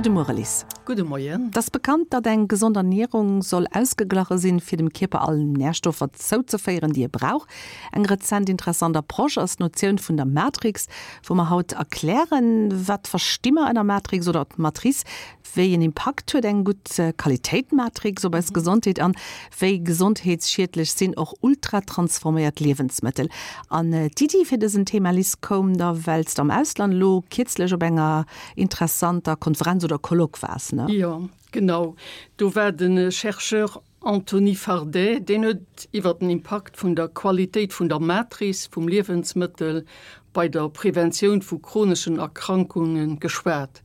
Gudde Muere Liz. Gudde Moien. Et ass bekannt, datt eng gesond Ernierung soll ausgeglache sinn, fir dem Kierper all Närstoffer zouzeféieren, déi e brauch. Eng rezent interessant Approche ass d'Notioun vun der Matrix, wou mer haut erklären, wat versti mer ënner Matrix oder Matrice, wéi en Impakt huet eng gutt Qualitéit Matrix op eis Gesondheet an wéi gesondheetsschiedlech sinn och ultratransforméiert Liewensmëttel. An d'Iddi fir dësen Thema, Liz, koum der, well s de am Ausland elo kierzlech op enger interessanter Konferenz oder Colloque waars, ne? Jo, genau. Do war de Chercheur Anthony Fardet, deen huet iwwer den Impakt vun der Qualitéit vun der Matrice vum Liewensmëttel bei der Preventioun vu chroneschen Erkrankunge geschwat.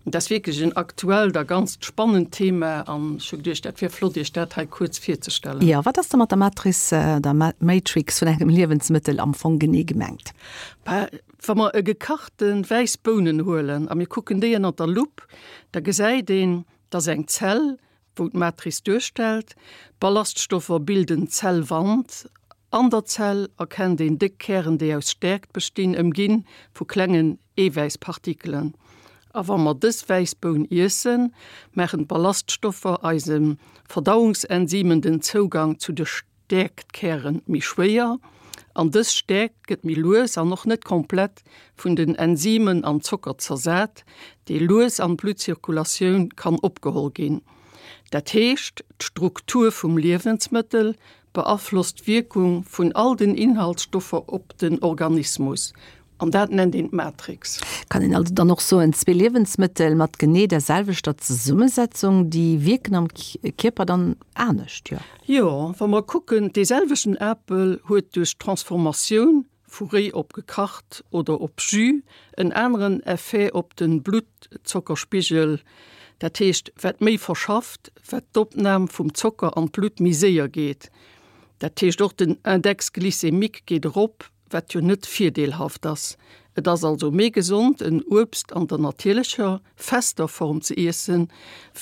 Dat ass wierklech en aktuellt a ganzt spannend Thema an ech hu geduecht, dat wier flott, Iech dat hei kuerz virzestellen. Jo, wat ass da mat der Matrice, der Matrix vun engem Liewensmëttel am Fong genee gemengt? Bah, wa mer e gekachte wäiss Bounen huelen a mir kucken déi ënner der Lupp, da gesäit een, dass eng Zell wou d'Matrice duerstellt. D'Ballaststoffer bilden d'Zellwand. An der Zell erkennt een déck Kären, déi aus Stäerkt bestinn, ëmginn vu klengen Eewäisspartikelen. A wa mer dës wäiss Boun iessen, maachen d'Ballaststoffer eise Verdauungsenzymen den Zougang zu de Stäerktkären méi schwéier an dës Stäerkt gëtt méi lues an och net komplett vun den Enzymen an Zocker zersat, dee lues an d'Bluttzirkulatioun kann opgeholl ginn. Dat heescht, d'Struktur vum Liewensmëttel beaflosst d'Wierkung vun all den Inhaltsstoffer op den Organismus. An dat nennt een d'Matrix. Kann een also dann och soen, zwee Liewensmëttel mat genee der selwechter Zesummesetzung, déi wierken am Kierper dann anescht, jo? Jo, wa mer kucken, dee selwechten Apel huet duerch d'Transformatioun vu réi op gekacht oder op Jus en aneren Effet op de Bluttzockerspigel. Dat heescht, wat méi verschafft, wat d'Opnam vum Zocker an d'Blutt méi séier geet. Dat heescht och den Index glycémique geet erop, wat jo net virdeelhaft ass. Et ass also méi gesond en Uebst an der natierlecher, fester Form ze iessen,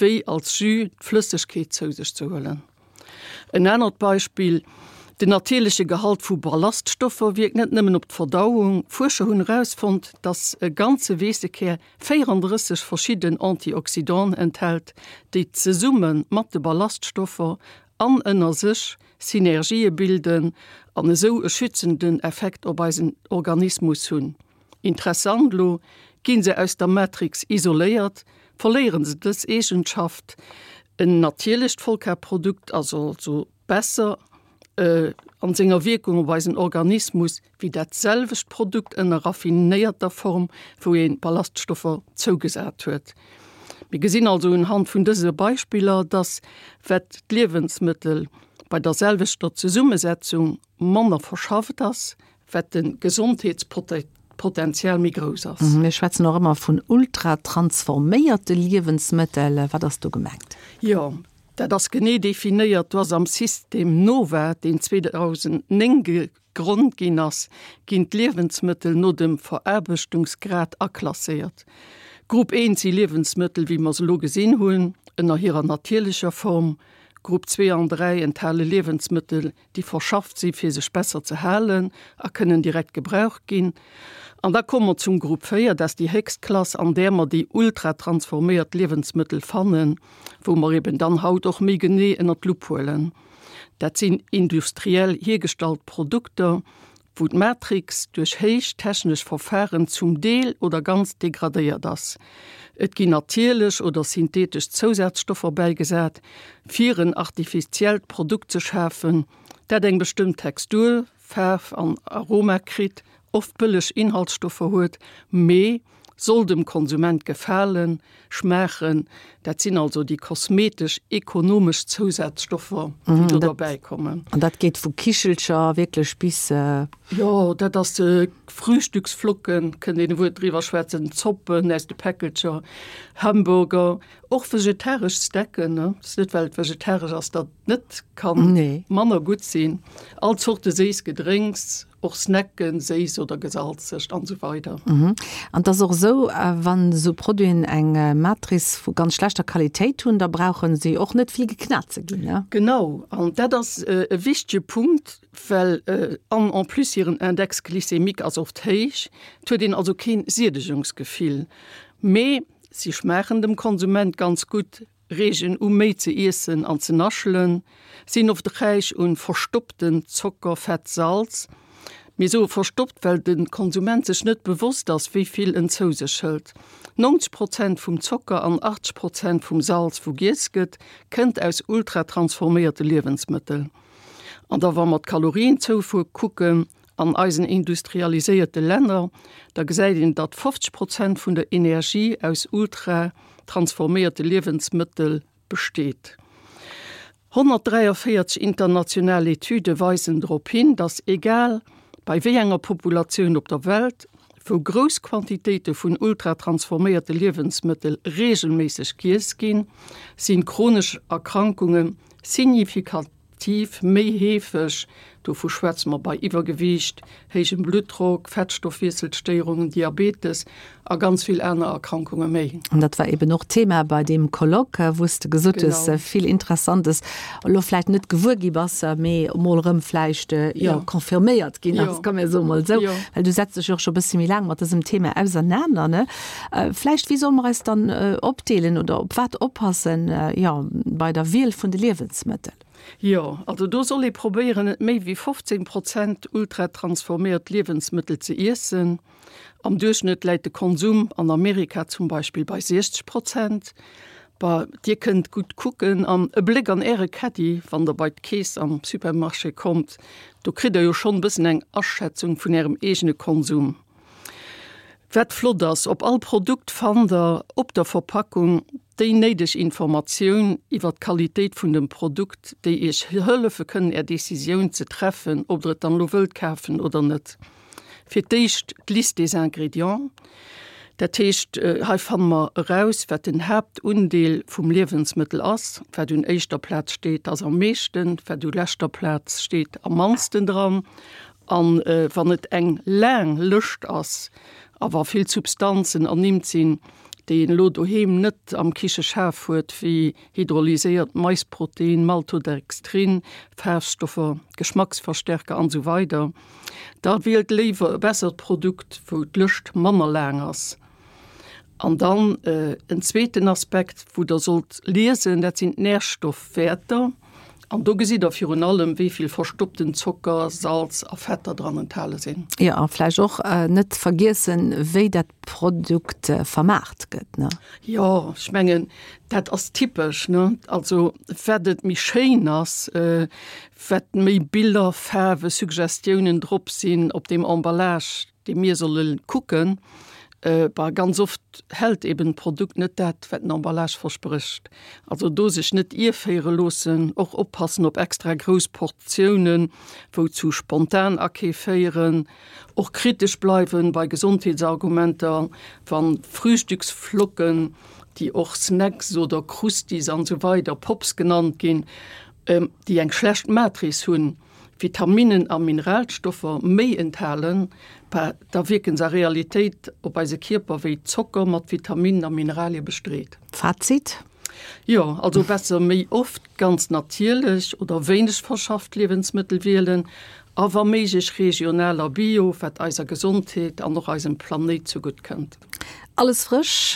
wéi als Jus d'Flëssegkeet zou sech ze huelen. En anert Beispill, Den natierleche Gehalt vu Ballaststoffer wierkt net nëmmen op d'Verdauung. Fuerscher hunn erausfonnt, dass e ganze Weessekär 34 verschidden Antioxydanten enthält, déi zesumme mat de Ballaststoffer an ënner sech Synergië bilden an esou e schützenden Effekt op eisen Organismus hunn. Interessant, Elo gi se aus der Matrix isoléiert, verléiere se dës Eegenschaft. En natierlecht Vollkarprodukt ass also besser an senger Wierkung op eisen Organismus wéi dat selwecht Produkt ënner raffinéierter Form, wou ee Ballaststoffer zougesat huet. Mir gesinn also unhand vun dëse Beispiller, dass wat d'Liewensmëttel bei der selwechter Zesummesetzung manner verschafft ass, wat de Gesondheetspotenzial méi grouss ass. Mir schwätzen och ëmmer vun ultratransforméierte Liewensmëttel. Wat ass do gemengt? Jo, dat ass genee definéiert. Do ass am System NOVA, deen 2009 Grond ginn ass, ginn d'Liewensmëttel no dem Veraarbechtungsgrad aklasséiert. Grupp 1 si Liewensmëttel, wéi mer se elo gesinn hunn, ënner hirer natierlecher Form. Grupp 2 an 3 enthale Liewensmëttel, déi verschafft si fir sech besser ze halen a kënnen direkt gebraucht ginn. An da komme mer zum Grupp 4, dat ass déi héchst Klass, an där mer déi ultratransforméiert Liewensmëttel fannen, wou mer eben dann haut och méi genee ënnert d'Lupp huelen. Dat sinn industriell hiergestallt Produkter, wou d'Matrix duerch héich technesch Verfaren zum Deel oder ganz degradéiert ass. Et ginn natierlech oder synthetesch Zousazstoffer bäigesat, fir en artifiziellt Produkt ze schafen, dat eng bestëmmt Textur, Faarf an Aroma kritt, oft bëlleg Inhaltsstoffer huet, mee soll dem Konsument gefalen, schmaachen. Dat sinn also déi kosmetesch, ekonomesch Zousazstoffer, déi do derbäi kommen. An dat geet vu Kichelcher wierklech bis. Jo, dat ass Frühstücksflocken, kënnt een e Wuert driwwer schwätzen, Zoppen aus de Päckelcher, Hamburger, och vegetaresch Stecken, ne? Ass net well et vegetaresch ass, datt et net kann manner gutt sinn. All Zorte séiss Gedrénks, Och Snacken, séiss oder gesalzegt an esou weider. An et ass och esou, wann esou Produiten eng Matrice vu ganz schlechter Qualitéit hunn, da brauche si och net vill geknat ze ginn, ne? Genau, an dat ass e wichtege Punkt, well an en plus hiren Index glycémique ass oft héich, et huet een also keen Siedegungsgefill, mee. Si schmaachen dem Konsument ganz gutt, reegen u méi ze iessen an ze naschelen, sinn oft räich un verstoppten Zocker, Fett, Salz. Mir soe verstoppt, well de Konsument sech net bewosst ass, wéi vill en zou sech hëlt. 90 Prozent vum Zocker an 80 Prozent vum Salz, wou giess gëtt, kënnt aus ultratransforméierte Liewensmëttel. An da wa mer d'Kalorienzoufuer kucken, An eisen industrialiséierte Länner, da gesäit een, datt 50 Prozent vun der Energie aus ultra-transforméierte Liewensmëttel besteet. 143 international Etüde weisen drop hin, datt egal bei wéi enger Populatioun op der Welt, wou grouss Quantitéite vun ultra-transforméierte Liewensmëttel reegelméisseg giess ginn, sinn chronesch Erkrankunge signifikant Tiv méi heefeg, dovu schwätze mer bei Iwwergewiicht, héijem Bluttdrock, Fettstoffwiesselstéierungen, Diabetes a ganz vill aner Erkrankunge méi. An dat war eben och Thema bei deem Colloque, wou s de gesot hues, vill Interessantes elo vläicht net gewuer gi bass, mee emol erëm vläicht, jo, confirméiert ginn ass, komm mir soe mol esou, well du setz dech jo och scho e bësse méi laang mat dësem Thema ausernaner, ne? Vläicht, wéi solle mer eis dann opdeelen oder op wat oppassen, jo, bei der Wiel vun de Liewensmëttel? Jo, also do soll ee probéieren, net méi wéi 15 Prozent ultratransforméiert Liewensmëttel ze iessen. Am Duerchschnëtt läit de Konsum an Amerika zum Beispill bei 60 Prozent. Bah, Dir kënnt gutt kucken an e Bléck an Äre Caddie, wann Der bei d'Keess am Supermarché kommt, do kritt Der jo schonn e bëssen eng Aschätzung vun Ärem eegene Konsum. Wat flott ass, op all Produkt fannt der op der Verpackung déi néideg Informatioun iwwer d'Qualitéit vun dem Produkt, déi iech hëllefe kënnen är Decisioun ze treffen, ob der et dann elo wëllt kafen oder net. Fir d'éischt d'Liste des ingrédients, dat heescht hei fanne mer eraus wat den Haaptundeel vum Liewensmëttel ass, wat un éischter Plaz steet ass am meeschten, wat u leschter Plaz steet am mannsten dran An wann et eng laang Lëscht ass a wa vill Substanzen ernimmt sinn, déi een elo doheem net am Kicheschaf huet, wéi hydrolyséiert Maisprotein, Maltodextrin, Faarfstoffer, Geschmacksverstärker an esou weider, da wielt léiwer e bessert Produkt, wou d'Lëscht manner laang ass. An dann en zweeten Aspekt, wou Der sollt liesen, dat sinn d'Närstoffwäerter. An do gesitt Der virun allem, wéi vill verstoppten Zocker, Salz a Fetter dran enthale sinn. Jo, a vläicht och net vergiessen, wéi dat Produkt vermaart gëtt, ne? Jo, ech mengen, dat ass typesch, ne? Also, wat et méi schéin ass, wat méi Biller, Faarwe, Suggestiounen drop sinn op deem Emballage, dee mir solle kucken, bah, ganz oft hält eben d'Produkt net dat, wat den Emballage versprécht. Also do sech net ierféiere loossen, och oppassen op extra grouss Portiounen, wou zu Spontanakeef féieren, och kritesch bleiwen bei Gesondheetsargumenter, wann Frühstücksflocken, déi och Snacks oder Krustis an esou weider, Pops genannt ginn, déi eng schlecht Matrice hunn, Vitaminnen a Mineralstoffer méi enthalen, da wierken se a Realitéit op eise Kierper wéi Zocker mat Vitaminnen a Mineralie bestreet. Fazit? Jo, also besser méi oft ganz natierlech oder wéineg verschafft Liewensmëttel wielen a wa méiglech regional a bio, wat eiser Gesondheet an och eisem Planéit zegutt kënnt. Alles frësch?